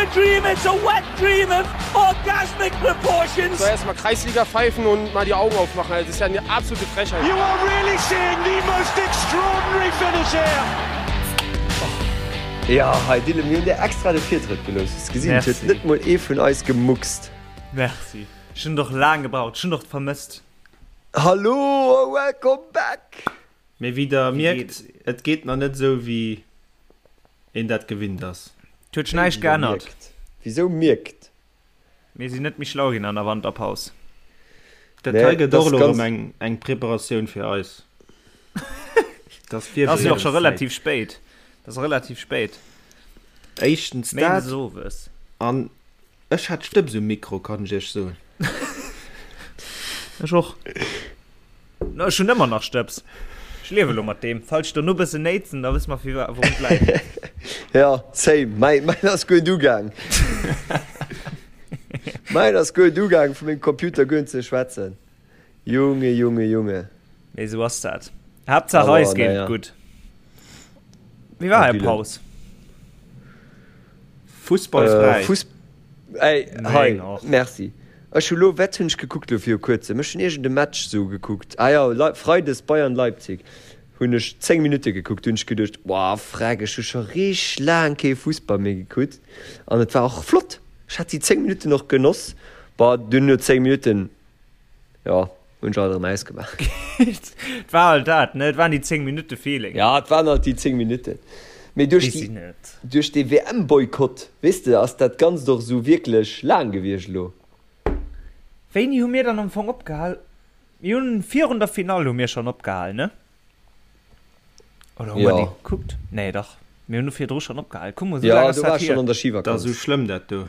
a dream, it's a wet dream of orgasmic proportions. So erstmal Kreisliga pfeifen und mal die Augen aufmachen. Also, das ist ja eine absolute Frechheit. You are really seeing the most extraordinary finish here. Jo, hei Dylan, mir hunn dir extra de Virtrëtt gelooss. Hues gesinn, et huet net mol ee vun eis gemuckst. Merci. Ech hunn et och laang gebraucht. Ech hunn et och vermësst. Hallo a welcome back! Mee wéi der mierkt, et geet nach net esou wéi een dat gewinnt ass. Et huet sech näischt geännert. Wisou mierkt? Mir sinn net méi schlau ginn an der Wanterpaus. Dat hei gëtt och elo erëm eng Preparatioun fir eis. Dat ass jo och scho relativ spéit. Dat ass relativ spéit. Éischtens dat an Ech hat Stëbs um Mikro, kann ech iech soen. Ech och. No, ech hunn ëmmer nach Stëbs. Ech liewe lo mat deem. Falls ech dono bëssen néitsen, da wësse mer fir wourun et läit. Ja, same. Mäin, mäin ass guer net ugaang. Mäin ass guer net ugaang, vu mengem Computer guer net ze schwätzen. Junge, Junge, Junge. Mee esou ass dat. Haaptsaach eis geet et gutt. Wéi war är Paus? Fussballfräi. Fuss ey hei merci. Ech hu lo wat hunn ech gekuckt lo viru kuerzem? Ech hunn iergend e Match sou gekuckt. Ah jo Lei Freides Bayern Leipzig hunn ech 10 Minutte gekuckt. Du hunn ech geduecht wow freck ech hu scho richteg laang kee Fussball méi gekuckt an et war och flott. Ech hat déi 10 Minutten och genoss. Bon dunn no 10 Minutten Jo, hunn ech alt erëm ausgemaach. Et war halt dat, ne? Et waren déi 10 Minutte Feeling. Ja, et waren halt déi 10 Minutten. Mee duerch déi, duerch dee WM-Boykott, weess de, ass dat Ganzt och esou wierklech laang gewiescht elo. Wéini hu mir dann am Fong opgehal? Mir hunn virun der Finall hu mir schonn opgehal, ne? Oder hu mer déi gekuckt? Nee, dach, mir hunn do virdru schonn opgehal. Kuck mol, esou laang ass dat hier. Jo, do war ech schonn an der Schivakanz. Dat ass esou schlëmm, dat do.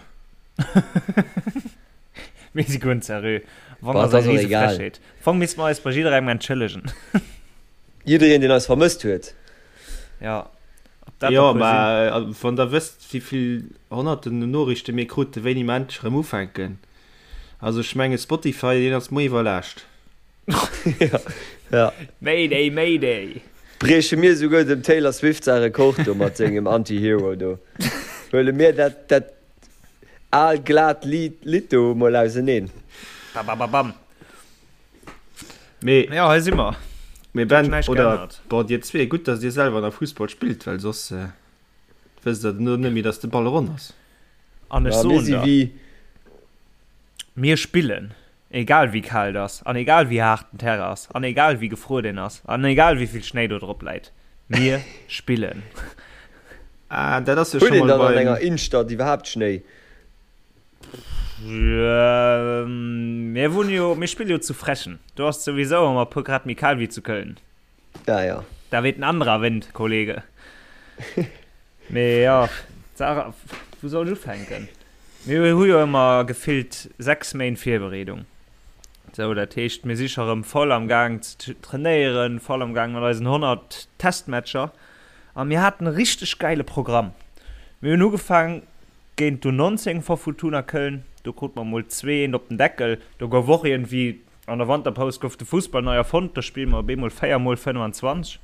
Mir si guer net seriö. Am Fong ass et eng rise Frechheet. Am Fong misste mer eis bei jidderengem entschëllegen. Jiddereen, deen eis vermësst huet. Jo, ob dat der puer sinn. Jo, mä wann der wësst, wéi vill honnerten Noriichte mir kruten, wéini mer endlech erëm ufänken. Also ech menge Spotify, deen ass muer iwwerlaascht. Ja. Mayday, Mayday! Brieche mir esouguer dem Taylor Swift säi Rekord do mat sengem Anti-Hero do. Huele mir dat, dat al glat Lidd, Lidd do mol auseneen. Babababam. Mee, Ja, hei si mer. mee Huet Ben, näischt oder, geännert. bon, dir zwee, gutt, datt dir selwer nach Fussball spillt, well soss wësst der duerno net méi, datt de Ball ronn ass. An ech Ja, mir soen si der, wéi. mir spillen. Egal wéi kal et ass, an egal wéi haart den Terrain ass, an egal wéi gefruer deen ass, an egal wéi vill Schnéi do drop läit, mir spillen. Ah, dat ass jo Huet scho een mol dann an beim. enger Innstadt iwwerhaapt Schnéi? Mir wunne jo, mir spille jo zu Frechen. Do ass et souwisou ëmmer e puer Grad méi kal wéi zu Köln. Ja, ja. Da weht en anderer Wind, Kollege. Mee jo, d'Saach, wou soll ech ufänken? Mir hu jo ëmmer gefillt 6 Méint Virbereedung. Sou, dat heescht, mir si scho rëm voll am Gaang ze trainéieren, voll am Gaang mat eisen 100 Testmatcher. A mir haten e richteg gäile Programm. Mir hunn ugefaang géint d'U19 vu Fortuna Köln, do krute mer mol 2, 1 op den Deckel. Do gouf och iergendwéi An der Wanterpaus gouf de Fussball nei erfonnt, do spille mer op eemol 4 mol 25.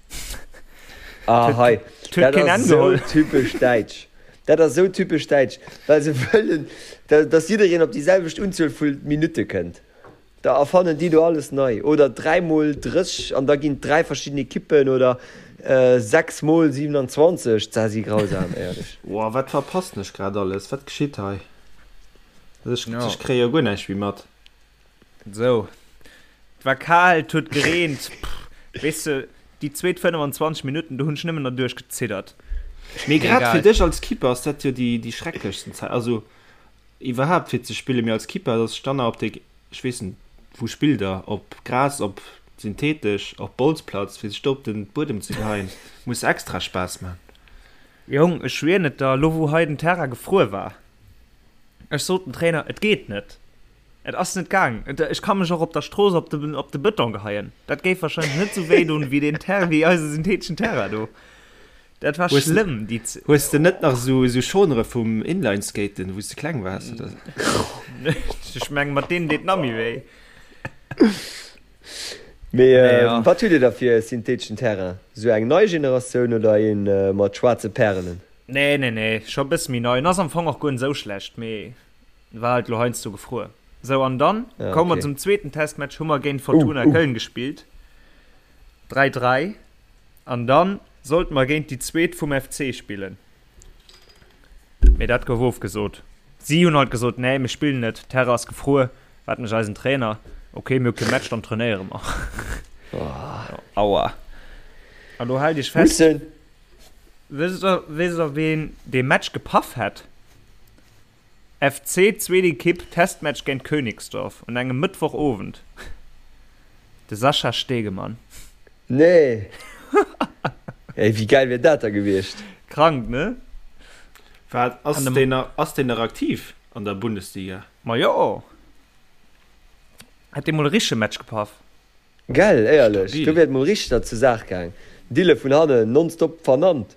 Ah hei, dat ass esou typesch däitsch. Dat ass esou typesch däitsch, well se wëllen, datt jiddereen op déi selwecht Unzuel vu Minutte kënnt. Da erfannen déi do alles nei. Oder 3 mol 30 an da ginn et 3 verschidden Ekippen oder 6 mol 27. Dat si grausam, éierlech. Woah, wat verpassen ech grad alles? Wat geschitt hei? Ech kréie jo guer näischt méi mat. Sou, et war kal, et huet gereent, pff, weess de, déi zweet 25 Minutten, do hunn ech nëmmen derduerch geziddert. Mee grad fir dech als Keeper ass dat jo déi, déi schrecklechsten Zäit, also iwwerhaapt fir ze spillen, mee als Keeper, dass ech dann nach op de, ech weess net, wou spillt der, op Gras, op synthetesch, op Bolzplatz, fir sech do op den Buedem ze geheien, muss extra Spaass man. Jong, ech schwieren et der, elo wou hei den Terrain gefruer war, ech sot dem Trainer, et geet net. Et ass net gaang. Ech ka mech och op der Strooss op de, op de Bëton geheien. Dat géif wahrscheinlech net sou wéi doen, wéi deen Ter, wéi eise syntheteschen Terrain do. Dat war Hues, schlëmm, déi Z hues de net nach sou, sou Schonere vum Inlineskaten, wou s de kleng waars, oder? Ech meng, mat deenen deet nach méi wéi. Mee Mee ja. wat hutt Dir da fir e syntheteschen Terrain? Sou eng nei Generatioun oder een mat schwaarze Pärelen? Nee, nee, nee, scho bësse méi nei. En ass am Fong och guer net esou schlecht, mee war halt lo heiansdo gefruer. Sou, an dann Ja, komme mer okay. zum zweeten Testmatch, hu mer géint Fortuna Uh, uh. Köln gespillt. 3, 3. An dann sollte mer géint déi zweet vum FC spillen. Mee dat gouf ofgesot. Si hunn halt gesot, nee, mir spillen net, Terrain ass gefruer. Wat mécht eisen Trainer? Ok, mir hu kee Match, dann trainéiere mer. Aua. An do haalt iech fest. Mussen. Wësst der, wësst der ween dee Match gepaff hätt? FC zweet Ekipp, Testmatch géint Königsdorf un engem Mëttwochowend. De Sascha Stegemann. Nee! Ey, wéi gäil wier dat da gewiescht? Krank, ne? Wat, ass deen nach, ass deen nach aktiv an der Bundesliga? Ma jo! Hätt dee mol e richtege Match gepaff. Gell, éierlech, Stabil. do wier et mol richteg zur Saach gaang. Dille vun hannen nonstop vernannt.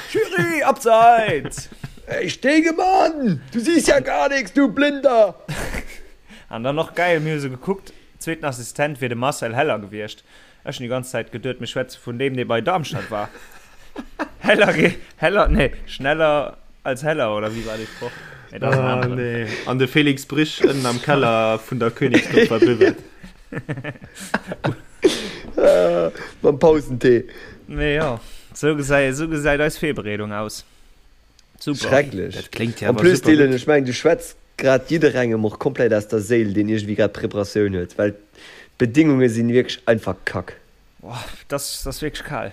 Schiri, Abseits! Ey Stegemann, du siehst ja gar nix, du Blinder! An dann och geil, mir hu se gekuckt, zweeten Assistent wier de Marcel Heller gewiescht. Ech hunn déi ganz Zäit geduet, mir schwätze vun deem, dee bei Darmstadt war. Heller, Heller, nee, schneller als Heller, oder wéi war dee Sproch? Nee, dat ass en Ah, aneren. nee. An de Felix Brych ënnen am Keller vun der Königsdorfer Buvette. Mam Pausentee. Mee jo, sou gesäit, sou gesäit eis Virbereedung aus. Super. Schrecklech. Dat kléngt jo En awer plus, super Dylan, gutt. ech mengen, du schwätz grad jidderengem och komplett aus der Séil, deen iergendwéi grad Preparatioun huet, well d'Bedingunge sinn wierklech einfach kack. Boah, das, das ass wierklech kal.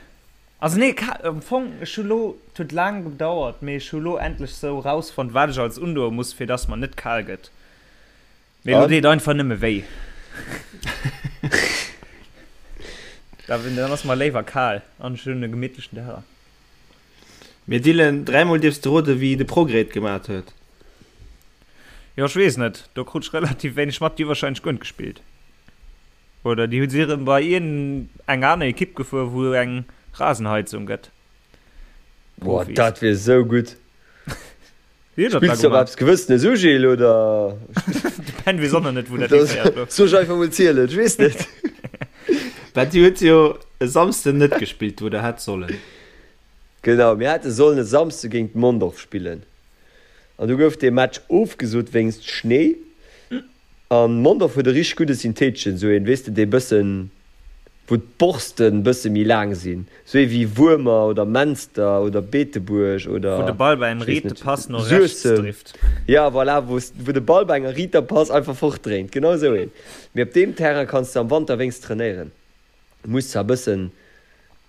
Also nee, kal, am Fong, ech hu lo, et huet laang gedauert, mee ech hu lo endlech sou rausfonnt, wat ech alles undoe muss, fir dass mer net kal gëtt. Mee lo An? deet einfach nëmme wéi. Da, dann ass mer léiwer kal an ech hunn e gemittlechen Teller. Mee Dylan, dräimol dierfs de roden, wéi de Progrès et gemat huet. Jo, ech weess net, do krut ech relativ wéineg mat. Déi hu warscheinlech guer net gespillt. Oder déi hu si erëm bei iergend eng aner Ekipp gefuer, wou eng Rasenheizung gëtt. Boah, Profis. dat wier esou gutt. Wéi huet dat da Spills du op gemaach? eppes Gewëssenes u, Gilles, oder? De Ben weess och nach net, wou dat hiféiert elo. Soll ech einfach mol zielen? Ech weess net. Bah, dir hutt jo e Samsden net gespillt, wou der hätt sollen. Genau, mir hätte sollen e Samsde géint Mondorf spillen. An du gouf dee Match ofgesot wéinst Schnéi. An Mondorf huet e richteg gudde Syntheteschen, sou een, weess de, dee bëssen, wou d'Borsten bësse méi laang sinn, sou ee wéi Wuermer oder Menster oder Beetebuerg oder, Wou de Ball bei engem ech weess riite net, Pass no rechts Suessem. drift. Ja, voilà, wou wou de Ball bei enger riiter Pass einfach fortdréint, genau sou een. Mee op deem Terrain kanns de am Wanter wéinst trainéieren. Muss zwar bëssen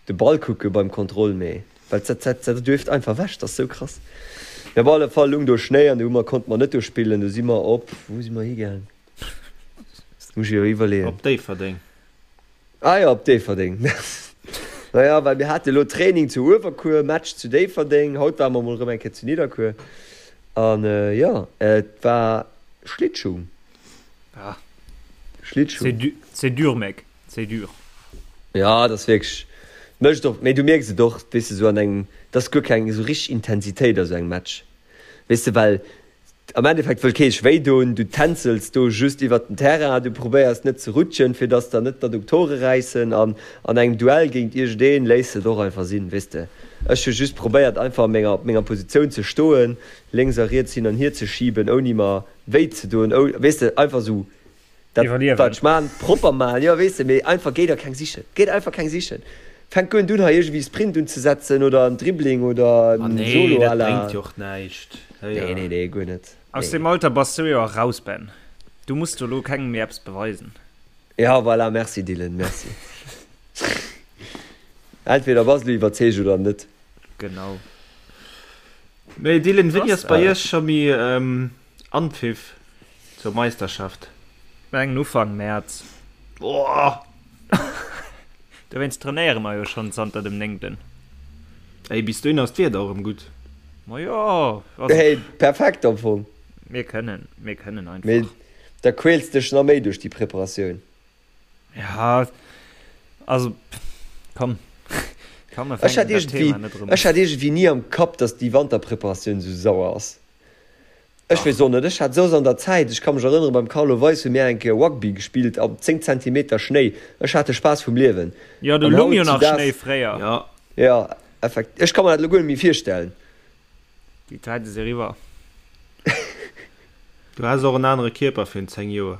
de Ball kucke beim Kontroll, mee well dat dat dat duerft einfach ewech, dat ass sou krass. Mee op alle Fall lung do Schnéi an do hu mer konnte mer net do spillen, do si mer op, wou si mer higaang? Muss ech jo iwwerleeën. Op Déifferdeng. Ah jo, op Déifferdeng. Naja, well mir hate lo Training zu Uewerkuer, Match zu Déifferdeng, haut ware mer mol erëm eng Kéier zu Nidderkuer an jo, et war Schlittschung. Ah. Schlittschuh. C'est du, c'est dur, mec. C'est dur. Ja, dat ass wierklech, mécht och, mee du mierks et och, weess de, sou an engem, et ass guer keng esou richteg Intensitéit a sou engem Match, weess de, well am Endeffekt wëll kee sech wéi doen, du tänzels do just iwwert den Terrain, du probéiers net ze rutschen, fir dass der net d'Adduktore räissen an an engem Duell géint iergendeen léiss de et och einfach sinn, weess de. Ech hu just probéiert einfach a menger, op menger Positioun ze stoen, lénks a riets hin an hier ze schiben, ouni mer wéi ze doen, weess de, einfach sou dat wat ech maan, propper maan, jo weess de, mee einfach géi der keng sichen, géi der einfach keng sichen, fänk guer net un hei iergendwéi Sprint unzesetzen oder en Dribbling oder Ah en nee, Solo dat à la, bréngt jo och näischt, nee nee nee guer net, Aus nee. deem Alter bass du jo eraus, Ben, du muss do lo kengem méi eppes beweisen. Ja voilà, merci Dylan, merci. Entweder bass du iwwerzeegt oder net. Genau. Mee Dylan, wéini ass bei iech scho méi Anpfiff zur Meisterschaft? Mengen Ufank Mäerz. Boah! Dowéinst trainéiere mer jo schonn zanter dem néngten. Ey, bis dohin ass d'Wieder och erëm gutt. Ma jo, also. Hey, perfekt am Fong. Mir kënnen, mir kënnen einfach. Mee da quäls dech nach méi duerch déi Preparatioun. Ja, also komm, komm, mir Ech hat fänken dat iergendwéi, Thema net erëm ech un. hat iergendwéi ni am Kapp, dass déi Wanterpreparatioun esou sauer ass. Ech weess och net, ech hat soss an der Zäit, ech ka mech erënneren, beim Carlo Weis hu mir eng Kéier Rugby gespillt am 10 Zentimeter Schnéi, ech hat de Spaass vum Liewen. Jo, do An lung jo nach hautzudags, Schnéi fréier. Ja. jo, effekt, ech ka mer dat elo guer net méi virstellen. Déi Zäite si eriwwer. Du has och en anere Kierper virun 10 Joer.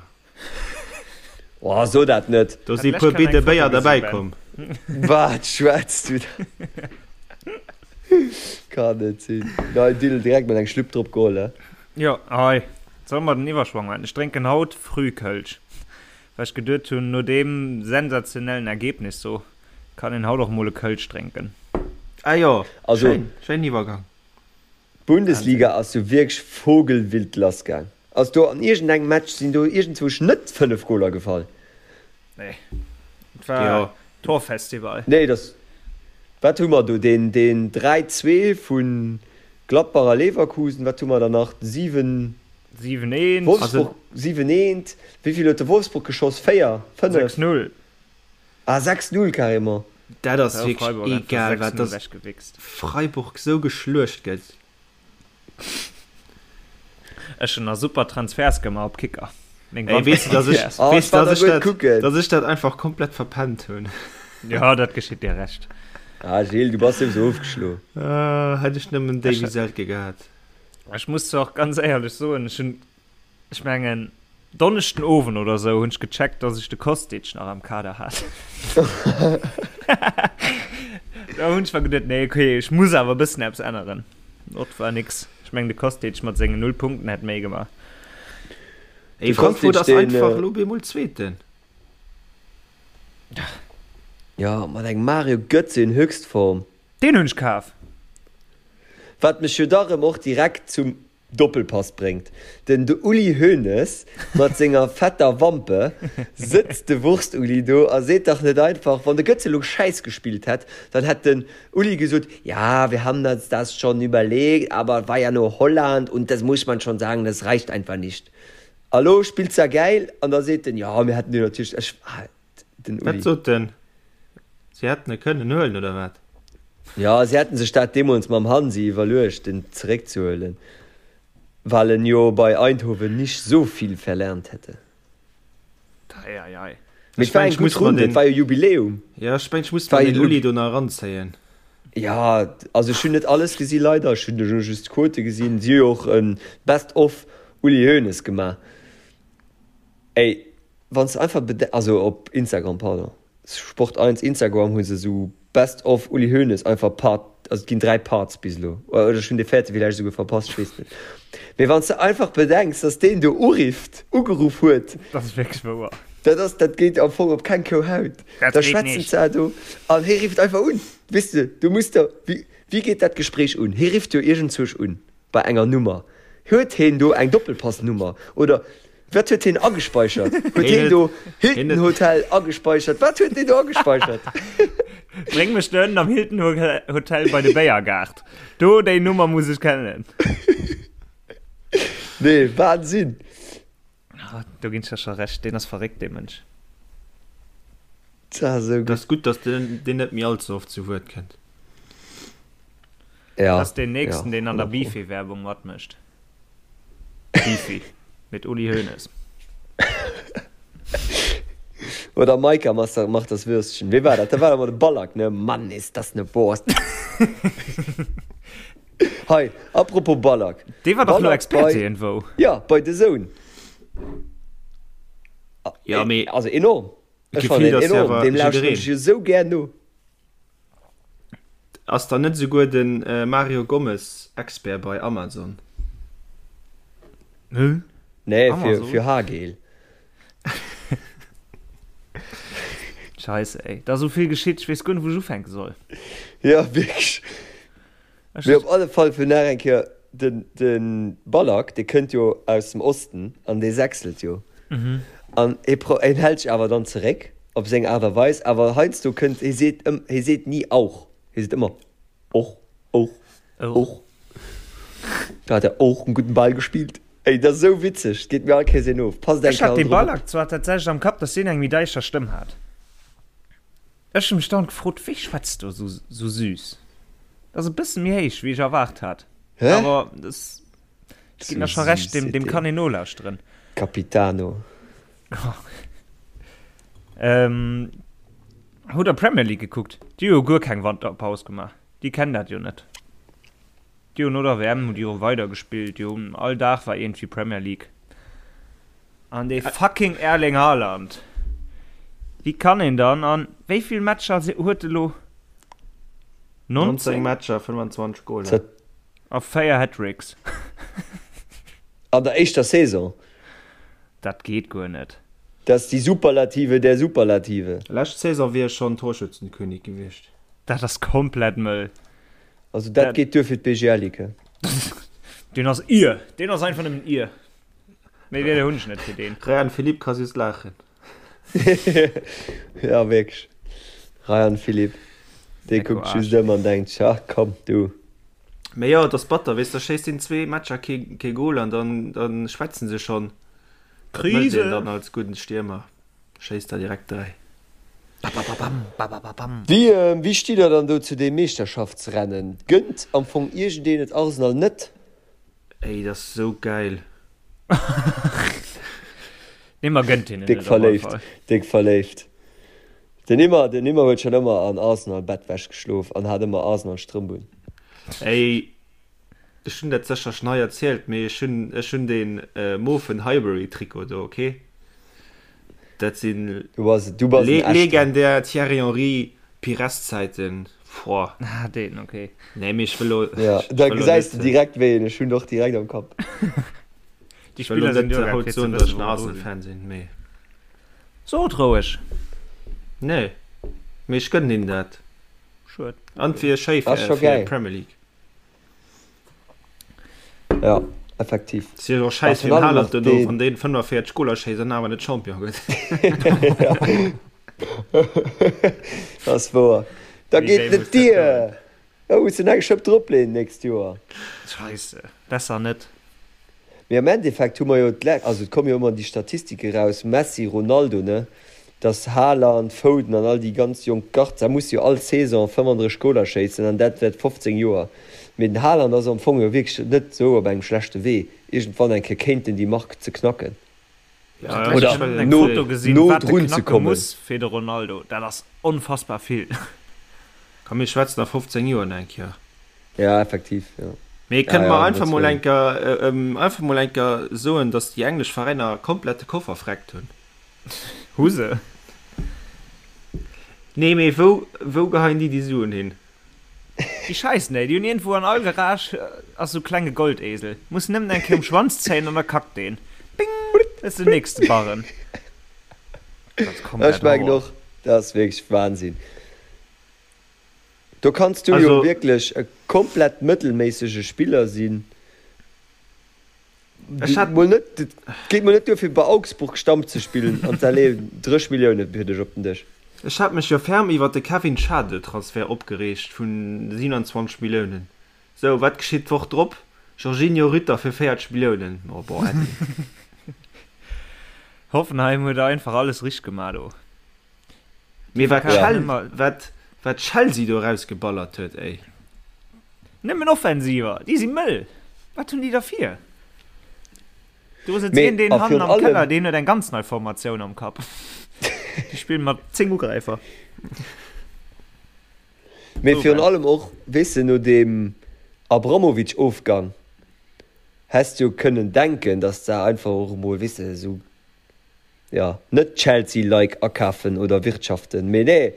Oh, so dat net. Do si puer Bidde Béier derbäi komm. Wat schwätz du da? Kann net sinn. Nei Dill direkt mol eng Schlupp drop geholl, he? Jo, hei, solle mer den Iwwerschwong maachen? Ech drénken haut Frühkölsch, well ech geduet hunn, no deem sensationellen Ergebnis do kann een haut och mol e Kölsch drénken. Ah jo, also, schéin, schéinen Iwwergang. D'Bundesliga ass jo wierklech vogelwild lass gaang. Ass do an iergendengem Match sinn do iergendzwousch net 5 Goler gefall? Nee, et war jo. Torfestival. Nee, dass, wat hu mer do, deen, deen 3, 2 vu Gladbach a Leverkusen, wat hu mer dann nach, 7, 7, 1. Wolfsburg, 7, 1, wéi vill huet de Wolfsburg geschoss, 4, 5? 6, 0. Ah, 6, 0 carrément. Dat ass wierklech egal wat, dass Freiburg sou geschluecht gëtt. Ech hun nach super Transfers gemaach op Kicker. Meng Ey, weess du, dass ech, oh, weess, dass ech dat, dass ech dat einfach komplett verpennt hunn. Ja, dat geschitt dir recht. Ah, Gilles, du bass sowieso ofgeschlo. Uh, hätt ech nëmmen Davy Selke gehat. Ech muss zwar och ganz éierlech soen, ech hunn Ech mengen Donneschden Owend oder sou hunn ech gecheckt, dass ech de Kostic nach am Kader hat. Da hunn ech mer geduet, nee okay, ech muss awer e bëssen eppes änneren. Ot war nix. Ech mengen de Kostic mat sengen 0 Punkten hätt méi gemaach. Ey, Frankfurt ass einfach elo bemol Zweeten. Ja, mat engem Mario Götze in Höchstform. Deen hunn ech kaf. Wat mech jo da rëm och direkt zum Doppelpass bréngt. Den Uli Hoeneß mat senger fetter Wampe sëtzt de Wurst-Uli do a seet dach net einfach, wann de Götze elo Schäiss gespillt hätt, dann hätt den Uli gesot, ja, wir haben uns das schon überlegt, aber war ja nur Holland und das muss man schon sagen, das reicht einfach nicht. A lo spillt se gäil an da seet en, jo, mir hätten jo natierlech, ech, den Uli. Wat sot en? Si hätten e kënnen huelen, oder wat? Jo, si hätten sech dat deemools mam Hansi iwwerluecht, en zeréckzehuelen, well en jo bei Eindhoven nicht so viel verlernt hätte. Ei, ei, ei. Mee et war eng gutt Runn, et war jo Jubiläum. Jo, ech mengen, ech muss mer den Uli do nach eranzéien. Jo, also ech hunn net alles gesi leider, ech hunn elo just d'Quote gesinn. Si hu jo och e Best of Uli Hoeneß gemaach. Ey, wann s de einfach bede-, also op Instagram, pardon, Sport 1 Instagram hu se esou Best of Uli Hoeneß einfach Part, also et ginn 3 Parts bis elo, oder ech hunn dee véierte villäicht esouguer verpasst, ech weess net. Mee wann s de einfach bedenks, dass deen do urifft, ugeruff huet, Dat ass wierklech wouer. dat ass, dat geet am Fong op keng Kou Haut. Dat Da geet schwätzen nicht. se do an hie rifft einfach un, weess de, du muss der, wéi, wéi geet dat Gespréich un? Hie rifft jo iergendzwousch un bei enger Nummer. Huet heen do eng Doppelpassnummer oder wat huet heen agespeichert? Huet heen do Hilton Hotel agespeichert? Wat huet deen do agespeichert? Bréng mech do ënnen am Hilton Hotel bei de Béiergaart. Do déi Nummer muss ech kennen. Nee, Wahnsinn! Ah, do ginn ech der scho Recht, deen ass verréckt, dee Mënsch. Dat ass esou gutt. Dat ass gutt, datt deen net méi all ze oft zu Wuert kënnt. Ja, Dat ass deen nächsten, ja, deen an der 100 Pro. Beefy-Werbung matmécht. Beefy mit Uli Hoeneß. Oder Maika macht das Würstchen. Wee war dat? Dat war ëmmer de Ballack, ne? Mann, ist das ne Wurst! Hei, apropos Ballack. Dee war dach elo Ballack Experte bei, iergendwou. ja, bei The Zone. Ja, mee Also enorm. Ech fannen gefilt en ass jo enorm. awer Deem lauschteren jiddereen. ech jo sou gär no. Ass dann net esouguer de Mario Gomez Expert bei Amazon? Hä? Nee, fir, Amazon? fir Haargel. Scheisse ey, da ass esou vill geschitt, ech weess guer net wou ech ufänke soll. Ja, wierklech. Ech. Mee op alle Fall fir nach eng Kéier, den, de Ballack, dee kënnt jo aus dem Osten an dee sächselt jo. An hie pro, hien hält sech awer dann zeréck op seng Aart a Weis, awer heiansdo kënnt, hie seet ëm, hie seet ni auch, hie seet ëmmer och, och, och. Da hat er och en gudden Ball gespielt. Ey, dat ass esou witzeg, et geet mir all Kéiers een of. Passt eng Ech hat Kéier dee drop op. Ballack zwar tatsächlech am Kapp, dass deen eng méi däischter Stëmm hat. Ech hu mech dauernd gefrot, wéi schwätzt do sou sou süß? Dat ass e bësse méi héich, wéi ech erwaart hat. Hä? Awer das, ech ginn der scho recht, deem, deem kann een nolauschteren. Capitano. Ähm, hutt der Premier League gekuckt? Déi hu jo guer keng Wanterpaus gemaach. Déi kennen dat jo net. Déi hunn no der WM hu déi jo weider gespillt, déi hunn all Dag war iergendwéi Premier League. An dee fucking Erling Haaland, wéi kann een dann an wéi vill Matcher huet e lo? 19 19 Matcher, 25 Goler. A 4 Hattricks. An der éischter Saison. Dat geet guer net. Dat ass déi Superlative der Superlative. Lescht Saison wier e schonn Torschützenkönig gewiescht. Dat ass komplett mëll. Also dat geet duer fir d'BGL-Ligue. Deen ass ir. Deen ass einfach nëmmen ir. Méi Wierder hunn ech net fir deen. Rayan Philippe ka just laachen. Ja wierklech. Rayan Philippe, dee kuckt just ëm an denkt sech, ach komm du. Mee jo, et ass batter, weess, da schéisst een zwee Matcher kee kee Gol an dann dann schwätzen se schonn. Wat mécht een dann als gudden Stiermer? Schéisst der direkt 3. Wéi wéi stitt der dann do zu deem Meeschterschaftsrennen? Gënnt am Fong iergendeen et Arsenal net? Ey, dat ass sou gäil. Nee, mer gënnt hinnen Déck et op alle verléift, Fall. déck verléift. Den Immer, den Immer huet schon ëmmer an Arsenal Bettwäsch geschlof an hat ëmmer Arsenal Strëmp un. Ey, ech hunn dat sécher schon hei erzielt, mee ech hunn, ech hunn deen mofen Highbury Trikot do, ok? Dat sinn Du bass, du bass en echten. legendär Thierry Henry Pires Zäiten, boah. Ah, deen, ok. Nee, mee ech wëll lo, Ja, ech da wëll lo gesäis de net, direkt wéi een, ech hunn och direkt am Kapp. Déi ech wëll lo Spiller sinn net duergaang haut fir ze soen, datt wëssen, ech en wou mer dru Arsenal sinn. Fan sinn, mee. Sot roueg. Nee, mee ech gënnen hinnen dat. Schued. An et wier schéi Ass fir scho fir gäil. d'Premier League. Ja, effektiv. Si och scheiss fir den Haaland dono, wann deen 45 Goler schéisst an awer net Champion gëtt. Dat ass wouer. Da geet net dier. Da muss en eng Schëpp dropleeën d'nächst Joer. Scheisse, besser net. Mee am Endeffekt hu mer jo d'lä-, also et komme jo ëmmer déi Statistike raus, Messi, Ronaldo, ne, dass Haaland, Foden an all déi ganz jonk Garde, da muss jo all Saison 35 Goler schéissen an dat wäert 15 Joer. Mee den Haaland ass am Fong jo wierklech net esou op engem schlechte Wee, iergendwann eng Kéier kéint en déi Mark ze knacken. Ja, Oder ech hunn eng no, Foto gesinn, no wat de drun ze knacke kommen. muss fir de Ronaldo, dat ass onfassbar vill. Komm mir schwätzen a 15 Joer nach eng Kéier. Ja, effektiv, jo. Mee Ja, kënne ja, mer du einfach hues mol Recht. eng Kéier, einfach mol eng Kéier soen, datt déi englesch Veräiner komplett de Koffer vreckt hunn? Hu se? Nee, mee wou, wou geheien déi déi Suen hin? Déi scheissen, ey. Déi hunn iergendwou an all Garage ass sou klenge Goldesel. Muss nëmmen eng Kéier um Schwanz zéien an da kackt deen. Bing! Dat ass den nächste Barren. Dat ass komplett Ech mengen och, dat ass wierklech Wahnsinn. Do kanns du jo wierklech e komplett mëttelméissege Spiller sinn. Ech hat mol net, et geet mol net duer fir bei Augsburg Stamm ze spillen an da leeën 30 Millioune fir dech op den Dësch. Ech hat mech jo ferm iwwert de Kevin Schade Transfert opgereegt vun 27 Milliounen. Sou, wat geschitt d'Woch drop? Georginio Rütter fir 40 Milliounen. Oh bon, äddi. Hoffenheim huet einfach alles richteg gemaach do. Mee wat Chel wat wat Chelsea do erausgeballert huet, ey. Nëmmen Offensiver, déi si mëll. Wat hunn déi da vir? Do sëtzt Mee een deen a hannen virun am Keller, allem. deen huet eng ganz nei Formatioun am Kapp. Déi spillen mat 10 Ugräifer. Mee virun allem och, weess de, no deem Abramovich-Ofgang häss de jo kënnen denken, datt se einfach och emol, weess de, esou jo, net Chelsea-like akafen oder wirtschaften, mee nee,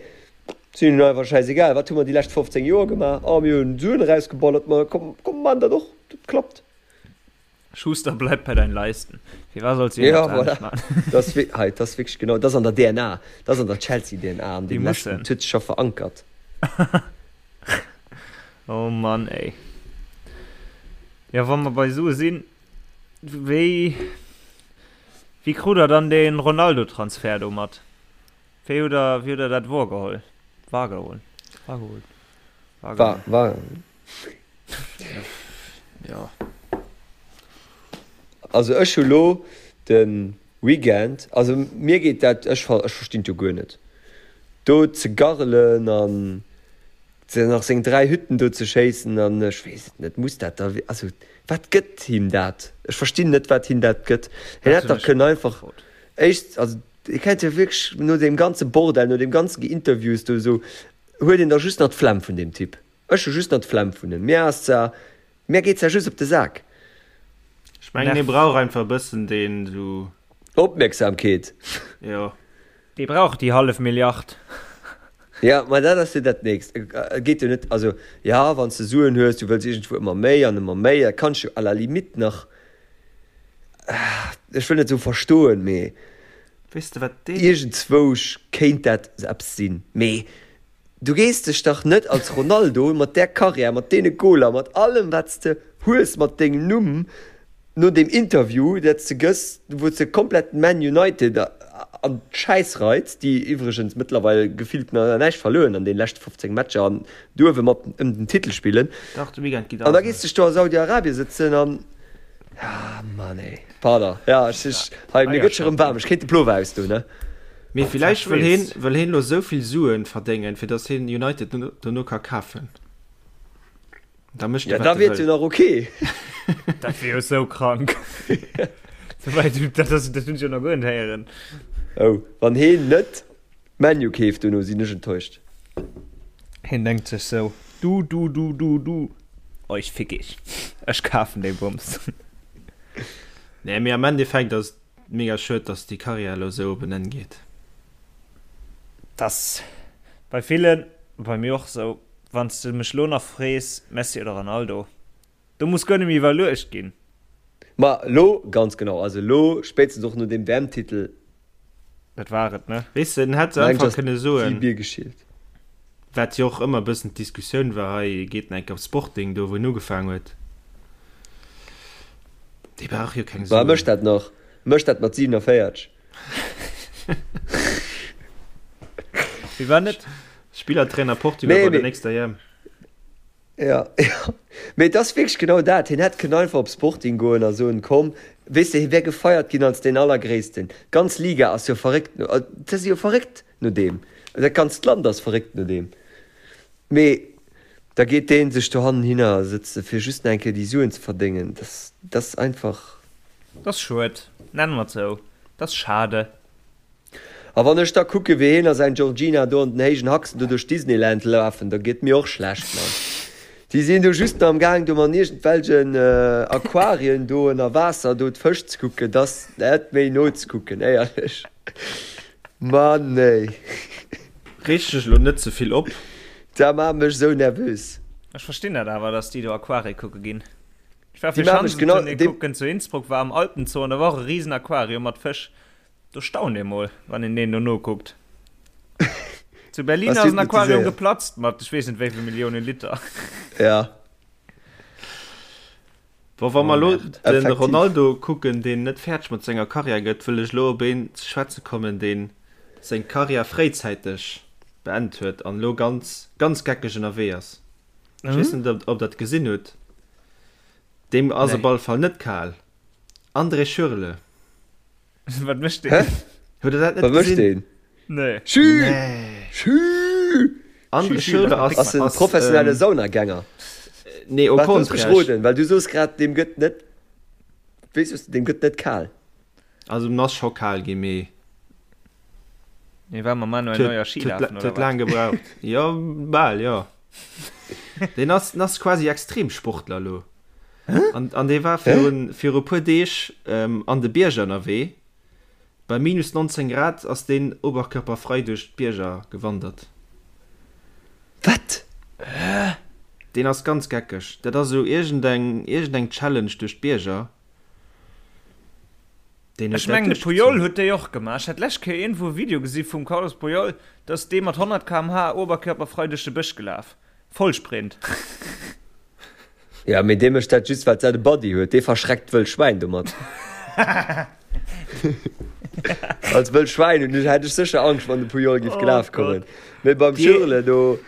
si hunn einfach schäisegal, wat hu mer déi lescht 15 Joer gemaach, oh mir hunn Suen erausgeballert, ma komm, komm maachen dat och, dat klappt. Schuster, bleib bei deinen Leisten. Firwat solls du Ja, iergendwas anescht voilà. maachen? Dat ass hei, dat ass wierklech genau, dat ass an der DNA, dat ass an der Chelsea-DNA, an Déi deem leschten, mussen. dat huet sech scho verankert. Oh Mann, ey. Jo, wa mer bei Sue sinn, wéi. Wéi krut der dann dee Ronaldo-Transfert do mat? Wéi hutt der, wéi hutt der dat worgeholl? Wahrgeholl? Wahrgeholl? War, war. Jo. Also ech hu lo de Weekend, also mir geet dat, ech ech verstinn et jo guer net, do ze garrelen an ze nach seng 3 Hütten do ze schéissen an ech weess et net, muss dat da, also wat gëtt him dat? Ech verstinn net wat him dat gëtt. Hien hätt dach kënnen einfach éischt, also hie kennt jo wierklech no deem ganze Bordell, no deem ganze Geinterviews do esou, huet een da just nach d'Flemm vun deem Typ. Ech hu just nach d'Flemm vun him. Mir ass zwar. Mär geet ja just op de Sak. Ech mengen hie brauch einfach e bëssen deen esou. Opmierksamkeet. Jo. Dee brauch déi hallef Milliard. Ja, ma dat ass jo dat nächst. Et geet jo net, also ja, wann s de Suen hues, du wëlls iergendwou ëmmer méi an ëmmer méi, dat kann ech jo à la limite nach, ech wëll net soe verstoen, mee Weess de wat deen. Iergendzwousch kéint dat eppes sinn. Mee du gees dech dach net als Ronaldo mat där Karriär, mat deene Goler, mat allem wat s de hues, mat dengem Numm, no deem Interview dat s de gëss, wou s de komplett Man United an d'Schäiss reits, déi iwwregens mëttlerweil gefillt nach näischt verluer hunn an deene leschte 15 Matcher an duerwe mat ëm den Titel spillen. Dach, de Weekend geet An da gees de dech do a Saudi-Arabien sëtzen an, ah Mann ey, pardon, ja ech, ech, hei mir gëtt scho rëm waarm, ech kéint de Plover ausdoen, ne? Mee villäicht wëll heen, wëll heen lo esou vill Suen verdéngen, fir dass heen United dono ka kafen. Da mécht e, wat e wëll. Ja, da wier et jo nach ok. Dat wier jo sou krank. Souwäit, dat ass, dat hunn ech jo nach guer net héieren. Oh, wann heen net ManU keeft dono, sinn ech enttäuscht. Heen denkt sech sou, Du, du, du, du, du, euch fick ich. Ech kafen dee Bums. Nee, mee am Endeffekt ass et mega schued, dass déi Karriär elo sou op en Enn geet. T'ass bei villen, bei mir och sou. Wann s de mech lo nach frees, Messi oder Ronaldo, do muss guer net méi iwwerluecht ginn. Ma lo, ganz genau, also lo, spéitstens och no deem WM-Titel. Dat war et, ne? Weess de, en hätt einfach kënne soen, wat jo och ëmmer e bëssen d'Diskussioun war hei, geet en enk op Sporting, do wou en ugefaang huet. Dee brauch jo keng Suen. Ma e mécht dat nach, e mécht dat mat 47. Wie war net? Spillertrainer Portugal nee, bei der mee, nächster EM. Ja, ja. Mee et ass wierklech genau dat. Hien hätt kënnen einfach op Sporting goen a soen, komm, weess de, hie wär gefeiert ginn als deen Allergréissten. D'ganz Liga ass jo verréckt no, se si jo verréckt no deem. Dat ganzt Land ass verréckt no deem. Mee da geet dee sech dohannen hinner sëtze fir just nach eng Kéier déi Suen ze verdéngen. Dat, dat ass einfach. Dat ass schued, nennen mer et sou. Dat ass schade. A wann ech da kucke wéi hien a säin Georgina do an den héijen Haxen do duerch Disneyland lafen, da gëtt mir och schlecht, Mann. Déi sinn do just nach am gaang do an iergendwelchen Aquarien do ënner Waasser do d'Fësch ze kucken, dat ass net méi nozekucken, éierlech. Mann ey. Reeg dech elo net ze vill op. Dat maacht mech esou nervös. Ech verstinn dat awer, dass déi do Aquarie kucke ginn. Ech war fir Schanzentournée kucken zu Innsbruck, war am Alpenzoo an da war och e risen Aquarium mat Fësch. Do staunt ee mol, wann een deen do nokuckt. Zu Berlin ass en Aquarium geplatzt mat ech weess net wéi vill Milliounen Liter. Ja. Bon, wa mer elo de Ronaldo kucken, deen net fäerdeg mat senger Karriär gëtt, wëll ech elo op een ze schwätze kommen, deen seng Karriär fréizäiteg beend huet an elo ganz, ganz geckeg ënnerwee ass. Ech weess net, ob Der et gesinn hutt. Deem ass op alle Fall net kal. André Schürrle. Wat mécht deen? Hä? Hutt der dat net Wat mécht gesinn? deen? Nee. Schü! Nee. Schü! André Schürrle ass, Ass en ass, professionelle ähm, Saunagänger. nee, au Wat looss mech contraire. roden, well du soos grad, deem gëtt net, wéi soos de, deem gëtt net kal. Also, en ass scho kal ginn, mee Nee, war mam Manuel huet, Neuer Ski huet, lafen, huet oder wat? laang gebraucht. Jo, bal, jo. Deen ass, den ass quasi Extremsportler elo. An, an dee war virun, viru puer Deeg ähm, an de Bierger ënnerwee. Bei minus 19 Grad ass deen oberkörperfrei duerch d'Bierger gewandert. Wat? Deen ass ganz geckeg. Dat ass esou iergendeng, iergendeng Challenge duerch d'Bierger. Deen huet Ech dat mengen de Puyol duerchgezunn. huet déi och gemaach. Ech hat d'lescht Kéier iergendwou e Video gesi vum Carlos Puyol, do ass dee mat 100 km/h oberkörperfrei duerch de Bësch gelaf. Vollsprint. Ja, mee dee mécht dat just, well dat e Buddy huet. Dee verschreckt d'wëll Schwäin domat. Als wëll Schwäin hunn ech, hätt ech sécher Angscht, wann de Puyol giff Oh gelaf Gott. kommen. Mee beim Déi Schürrle do.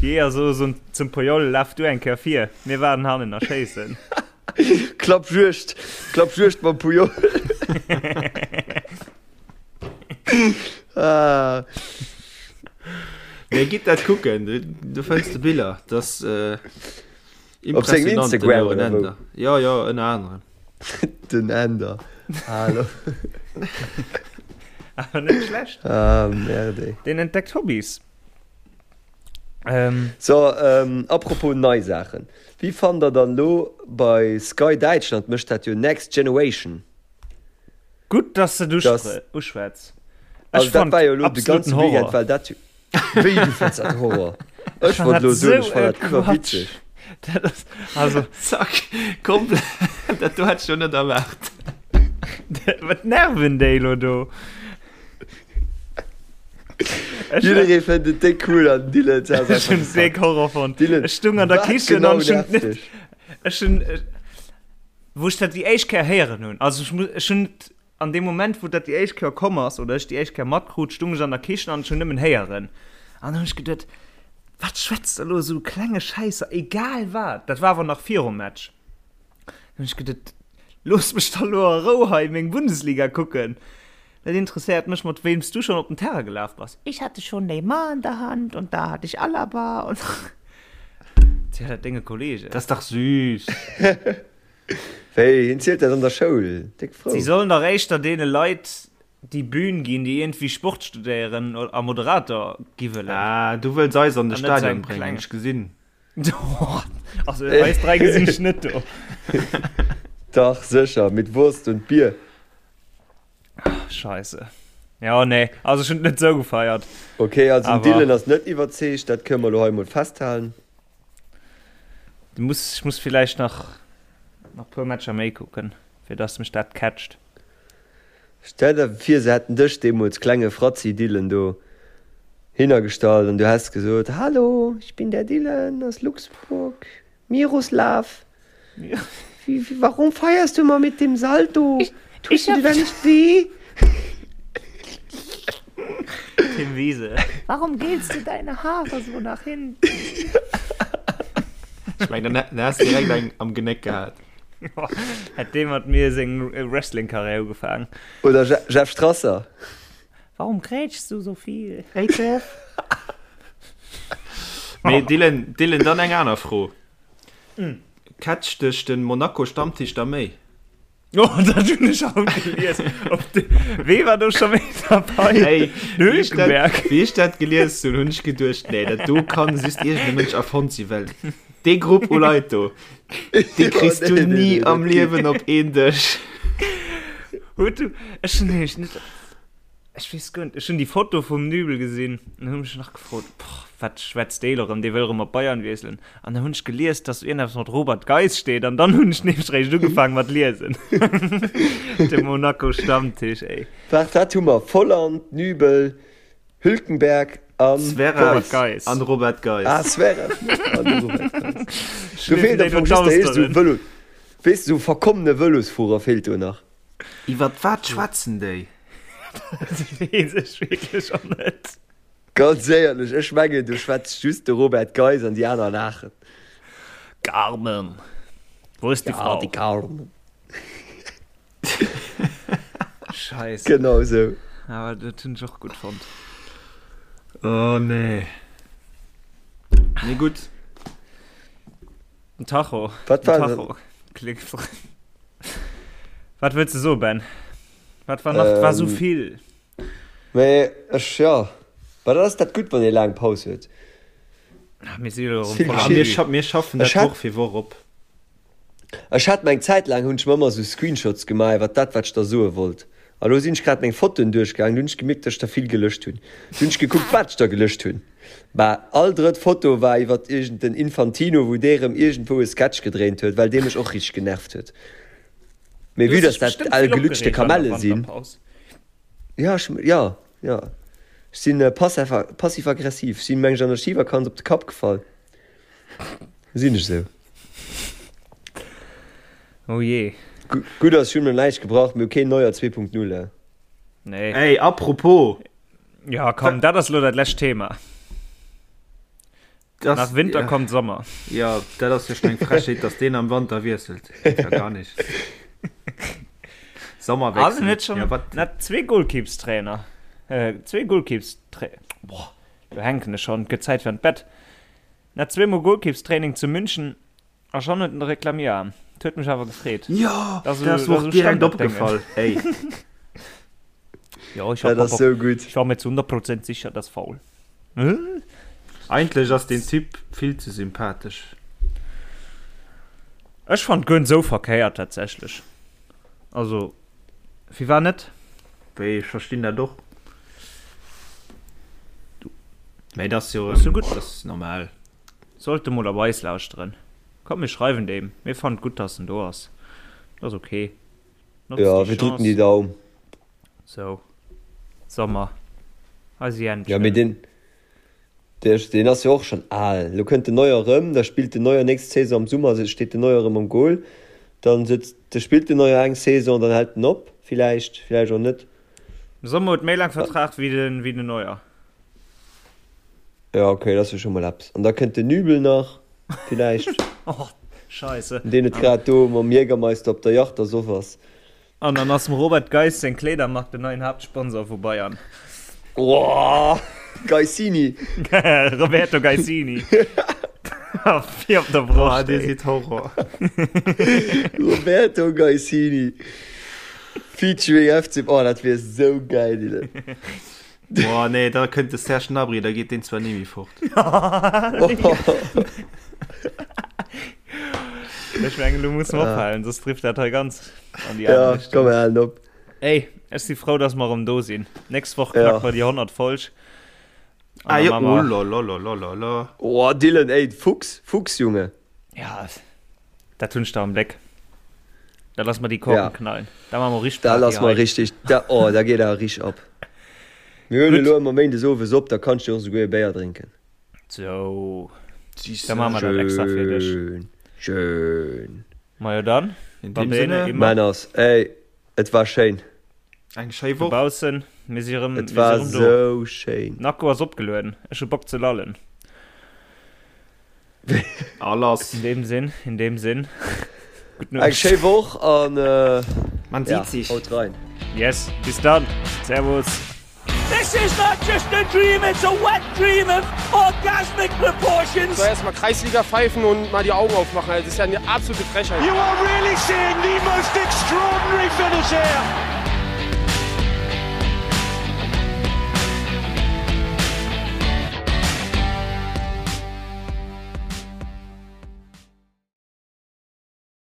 Jeeër soe zum Puyol, Laf du eng Kéier vir, mir waarden hannen a schéissen. Klappjuegd, Klappjuegd mam Puyol. Ah. Nee, gitt dat kucken, du, du fënns de Biller. Dat ass äh, Op sengem impressionant, den Instagram Joren oder wou? Ender. Ja, ja, ënner anerem. Den Änder. Hallo. Awer net schlecht. Ah, merde. Deen entdeckt Hobbys. Ähm. So, ähm, apropos nei Saachen. Wéi fannt der dann lo bei Sky Däitschland mécht dat jo Next Generation? Gutt, dass de et uschwätz. Also dat war jo lo de ganze Weekend war dat jo. Wéi du fënns dat Horror? Ech wollt lo soen, ech fann dat iwwerwitzeg. Dat ass also. Zack, komplett, dat do hätt ech jo net erwaart. Wat nerven déi lo do? Jidderee fënnt et déck cool an Dylan ass einfach. Ech hunn déck Horror fonnt. Dylan, ech stung an der Kichen genau an ech hunn net. Ech hunn. Wou ech dat déi éischt Kéier héieren hunn, also ech muss, ech hunn et an deem Moment, wou dat déi éischt Kéier komm ass oder ech déi éischt Kéier matkrut, stung ech an der Kichen an ech hunn nëmmen héieren. An dann hunn ech geduet, Wat schwätzt der elo esou klenge Schäisser, egal wat. Dat war awer nach virum Match. Dann hunn ech geduet, Looss mech da lo a Rou hei meng Bundesliga kucken. Dat interesséiert mech, mat weem s du schonn op den Terrain gelaf bass. Ich hatte schon Neymar in der Hand und da hatte ich Alaba und. Ziel dat denge Kollegen. Dat ass dach süß. Wéi, hien zielt dat an der Schoul, déck frou. Si sollen dach éischter deene Leit déi Bühn ginn, déi iergendwéi Sport studéieren a Moderator gi wëllen. Ah, du wëlls eis an de Stadion bréngen, ech gesinn. Also eis 3 gesinn ech net do. Dach sécher, mit Wurst und Bier. Scheisse. Ja, nee, also ech hunn et net sou gefeiert. Ok, also den Dylan ass net iwwerzeegt, dat kënne mer elo hei mol festhalen. Du muss, ech muss villäicht nach nach puer Matcher méi kucken, fir dass mech dat catcht. Stell der vir se hätten dech deemools, klenge Fratzi Dylan, do hinnergestallt an du häss gesot, Hallo, ich bin der Dylan aus Luxemburg, Miroslav, wie, warum feierst du immer mit dem Salto? Tust du dir da nicht weh? Tim Wiese. Warum gelst du deine Haare so nach hinten? Ech mengen, dann häss de direkt eng am Genéck gehat. Hätt dee mat mir seng Wrestling-Karriär ugefaangen. Oder Jeff Strasser. Warum grätschst du so viel? Hey Jeff! Mee Dylan, Dylan, dann eng aner Fro. Catcht dech den Monaco Stammtisch da méi? Oh, dat hunn ech haut gelies. Op de, wee war do scho méi dabei? Hey, Den wéi ech dat, Hülkenberg. wéi ech dat gelies hunn, hunn ech geduecht, nee, dat do kann just iergend e Mënsch erfonnt sinn, well dee Grupp u Leit do, dee kriss du nee, nee, ni nee, am dat geet. Liewen op een Dësch. Huet du, ech hunn nämlech net, Ech weess guer net, ech hunn déi Foto vum Nübel gesinn an hunn mech nach gefrot, boah, wat schwätzt dee elo rëm, dee wëll rëm op Bayern wiesselen. An dann hunn ech gelies, dass do iergendeppes mat Robert Geis steet an dann hunn ech nämlech réischt ugefaangen mat liesen. De Monaco Stammtisch, ey. Waart, wat hu mer? Volland, Nübel, Hülkenberg an Zverev Geis. an Robert Geis. Ah, Zverev an Robert Geis. Do Schleefen feelt déi am do Fong just der eescht esou d'Austeren. Vëlo, weess de, esou verkommene Vëlosfuerer feelt do nach. Iwwert wat schwätzen déi? Dat weess ech wierklech och net. Ganz éierlech, ech mengen do schwätzt just de Robert Geis an déi aner laachen. Carmen, wo ist die Ja, Frau? die Carmen. Scheisse. Genau esou. Awer dat hunn ech och gutt fonnt. Oh nee. Nee gutt. Den Tacho. Wat Den war denn? Tacho klingt. Wat wëlls de soen, Ben? Wat war nach? War sou Ähm, vill. Mee ech, ja. Mä dat ass dat Gutt, wann ee laang Paus huet. Ach, mir si jo erëm Vill voll am Ah, mir, geschitt. scha mir schaffen dat Ech hat, Woch fir Woch op. ech hat meng Zäit laang hunn ech mer ëmmer sou Screenshots gemaach iwwer dat, wat ech da soe wollt. A lo sinn ech grad meng Fotoen duerchgaangen, du hunn ech gemierkt, datt ech der vill gelëscht hunn. Du hunn ech gekuckt, wat ech der gelëscht hunn. Bah, all drëtt Foto war iwwert iergend den Infantino, wou dee rëm iergendwou e Sketch gedréint huet, well dee mech och richteg genervt huet. Mee Du vue hues dass dech dat bestëmmt al vill gelutschte opgereegt an der Kamelle sinn. Wanterpaus. Jo, ech, jo, jo. Ech sinn passiv-aggressiv. Ech sinn, meng ech, an der Schivakanz op de Kapp gefall. Sinn ech esou. Oh jee. Gutt ass, ech hunn mer näischt gebrach, mir hu keen Neuer 2.0, eh. Nee. Ey, apropos! Ja, komm, dat ass lo dat lescht Thema. Das, Nach Winter ja, kommt Sommer. Ja, dat ass jo schon eng Frechheet, dass deen am Wanter wiesselt. Geht ja gar nicht. Sommerwechsel. Also net schon Ja, wat? net zwee Goalkeepstrainer. Äh, zwee Goalkeepstra Boah, do hänken ech schon, gëtt Zäit fir an d'Bett. Net zweemol Goalkeepstraining zu München A schon huet en de Reklamierarm. Et huet mech awer gefreet. Jo, Dat ass dat ass esou mer och direkt Standarddéngen. opgefall. Ey. Jo, ich hab Dat ass och, sou gutt. ich war mir zu 100 Prozent sicher, dass faul. Eigentlech ass deen Typ vill ze sympathesch. Ech fannt guer net sou verkéiert tatsächlech. Also firwat net? Wéi, ech verstinn dat och. Mä et ass jo Ass jo gutt. Et ass normal. Sollt e mol op eis lauschteren. Komm mir schreiwen deem, mir fannen et gutt dass en do ass. Dat ass ok. Notzt Ja, déi wir drücken die Chance. Daum. Sou, Sommer, eise Ja, mee Jänchen. deen, deen ass jo och schonn al. Lo kënnt den Neuer erëm, da spillt den Neuer nächst Saison am Summer, steet den Neuer erëm am Goal. Dann sëtzt, da spillt den Neuer eng Saison, dann hält en op, villäicht, villäicht och net. De Sommer huet méi laang Vertrag wéi den, wéi den Neuer. Ja, okay, dat ass jo scho mol eppes. An da kënnt den Nübel nach, villäicht. Oh, Scheisse. Deen et grad do mam Jägermeister op der Yacht ersoff ass. An dann ass dem Robert Geiss seng Kleedermark den neien Haaptsponsor vu Bayern. Woah, Geissini! Roberto Geissini. Fir op der Broscht, Dir sidd Horror. Roberto Geissini featuring FC, oh dat wier sou gäil, Dylan. Boah, nee, da kënnt de Serge Gnabry, da geet deen zwar ni méi fort. Ech mengen, lo musse mer ophalen, soss trifft dat hei ganz an déi aner Ja, Richtung. komm, mir halen op. Ey, ech si frou, dass mer erëm do sinn. Nächst Woch Ja. knacke mer déi 100. Folg. Ah An jo, da maache oh mer. lolololololo. Oh, Dylan, ey, Fuchs, Fuchs, Junge. Ja, dat hunn ech da am Bléck. Da lasse mer déi Korken Ja. knallen. Da maache mer richteg Da Party lasse mer hei. richtig, da, oh, da geet awer richteg ab. Mir huelen Gutt. elo ëmmer méindes owes op, da kanns du och esouguer e Béier drénken. Sou, Siehst da du. maache mer dat extra fir dech. Schön, schön. Majo dann, In va dem bene, Sinne, immer. Männers, ey, et war schéin. eng schéi Woch. Dobaussen, mir si rëm, Et mir si war rëm do. sou schéin. Den Akku ass opgelueden, ech hu Bock ze lallen. A lass. In dem Sinn, in dem Sinn, gutt Eng Nuecht. schéi Woch an Man ja, sieht sich. haut rein. Yes, bis dann. Servus. This is not just a dream, it's a wet dream of orgasmic proportions. So erstmal Kreisliga pfeifen und mal die Augen aufmachen. Also, das ist ja eine absolute Frechheit. You are really seeing the most extraordinary finish here.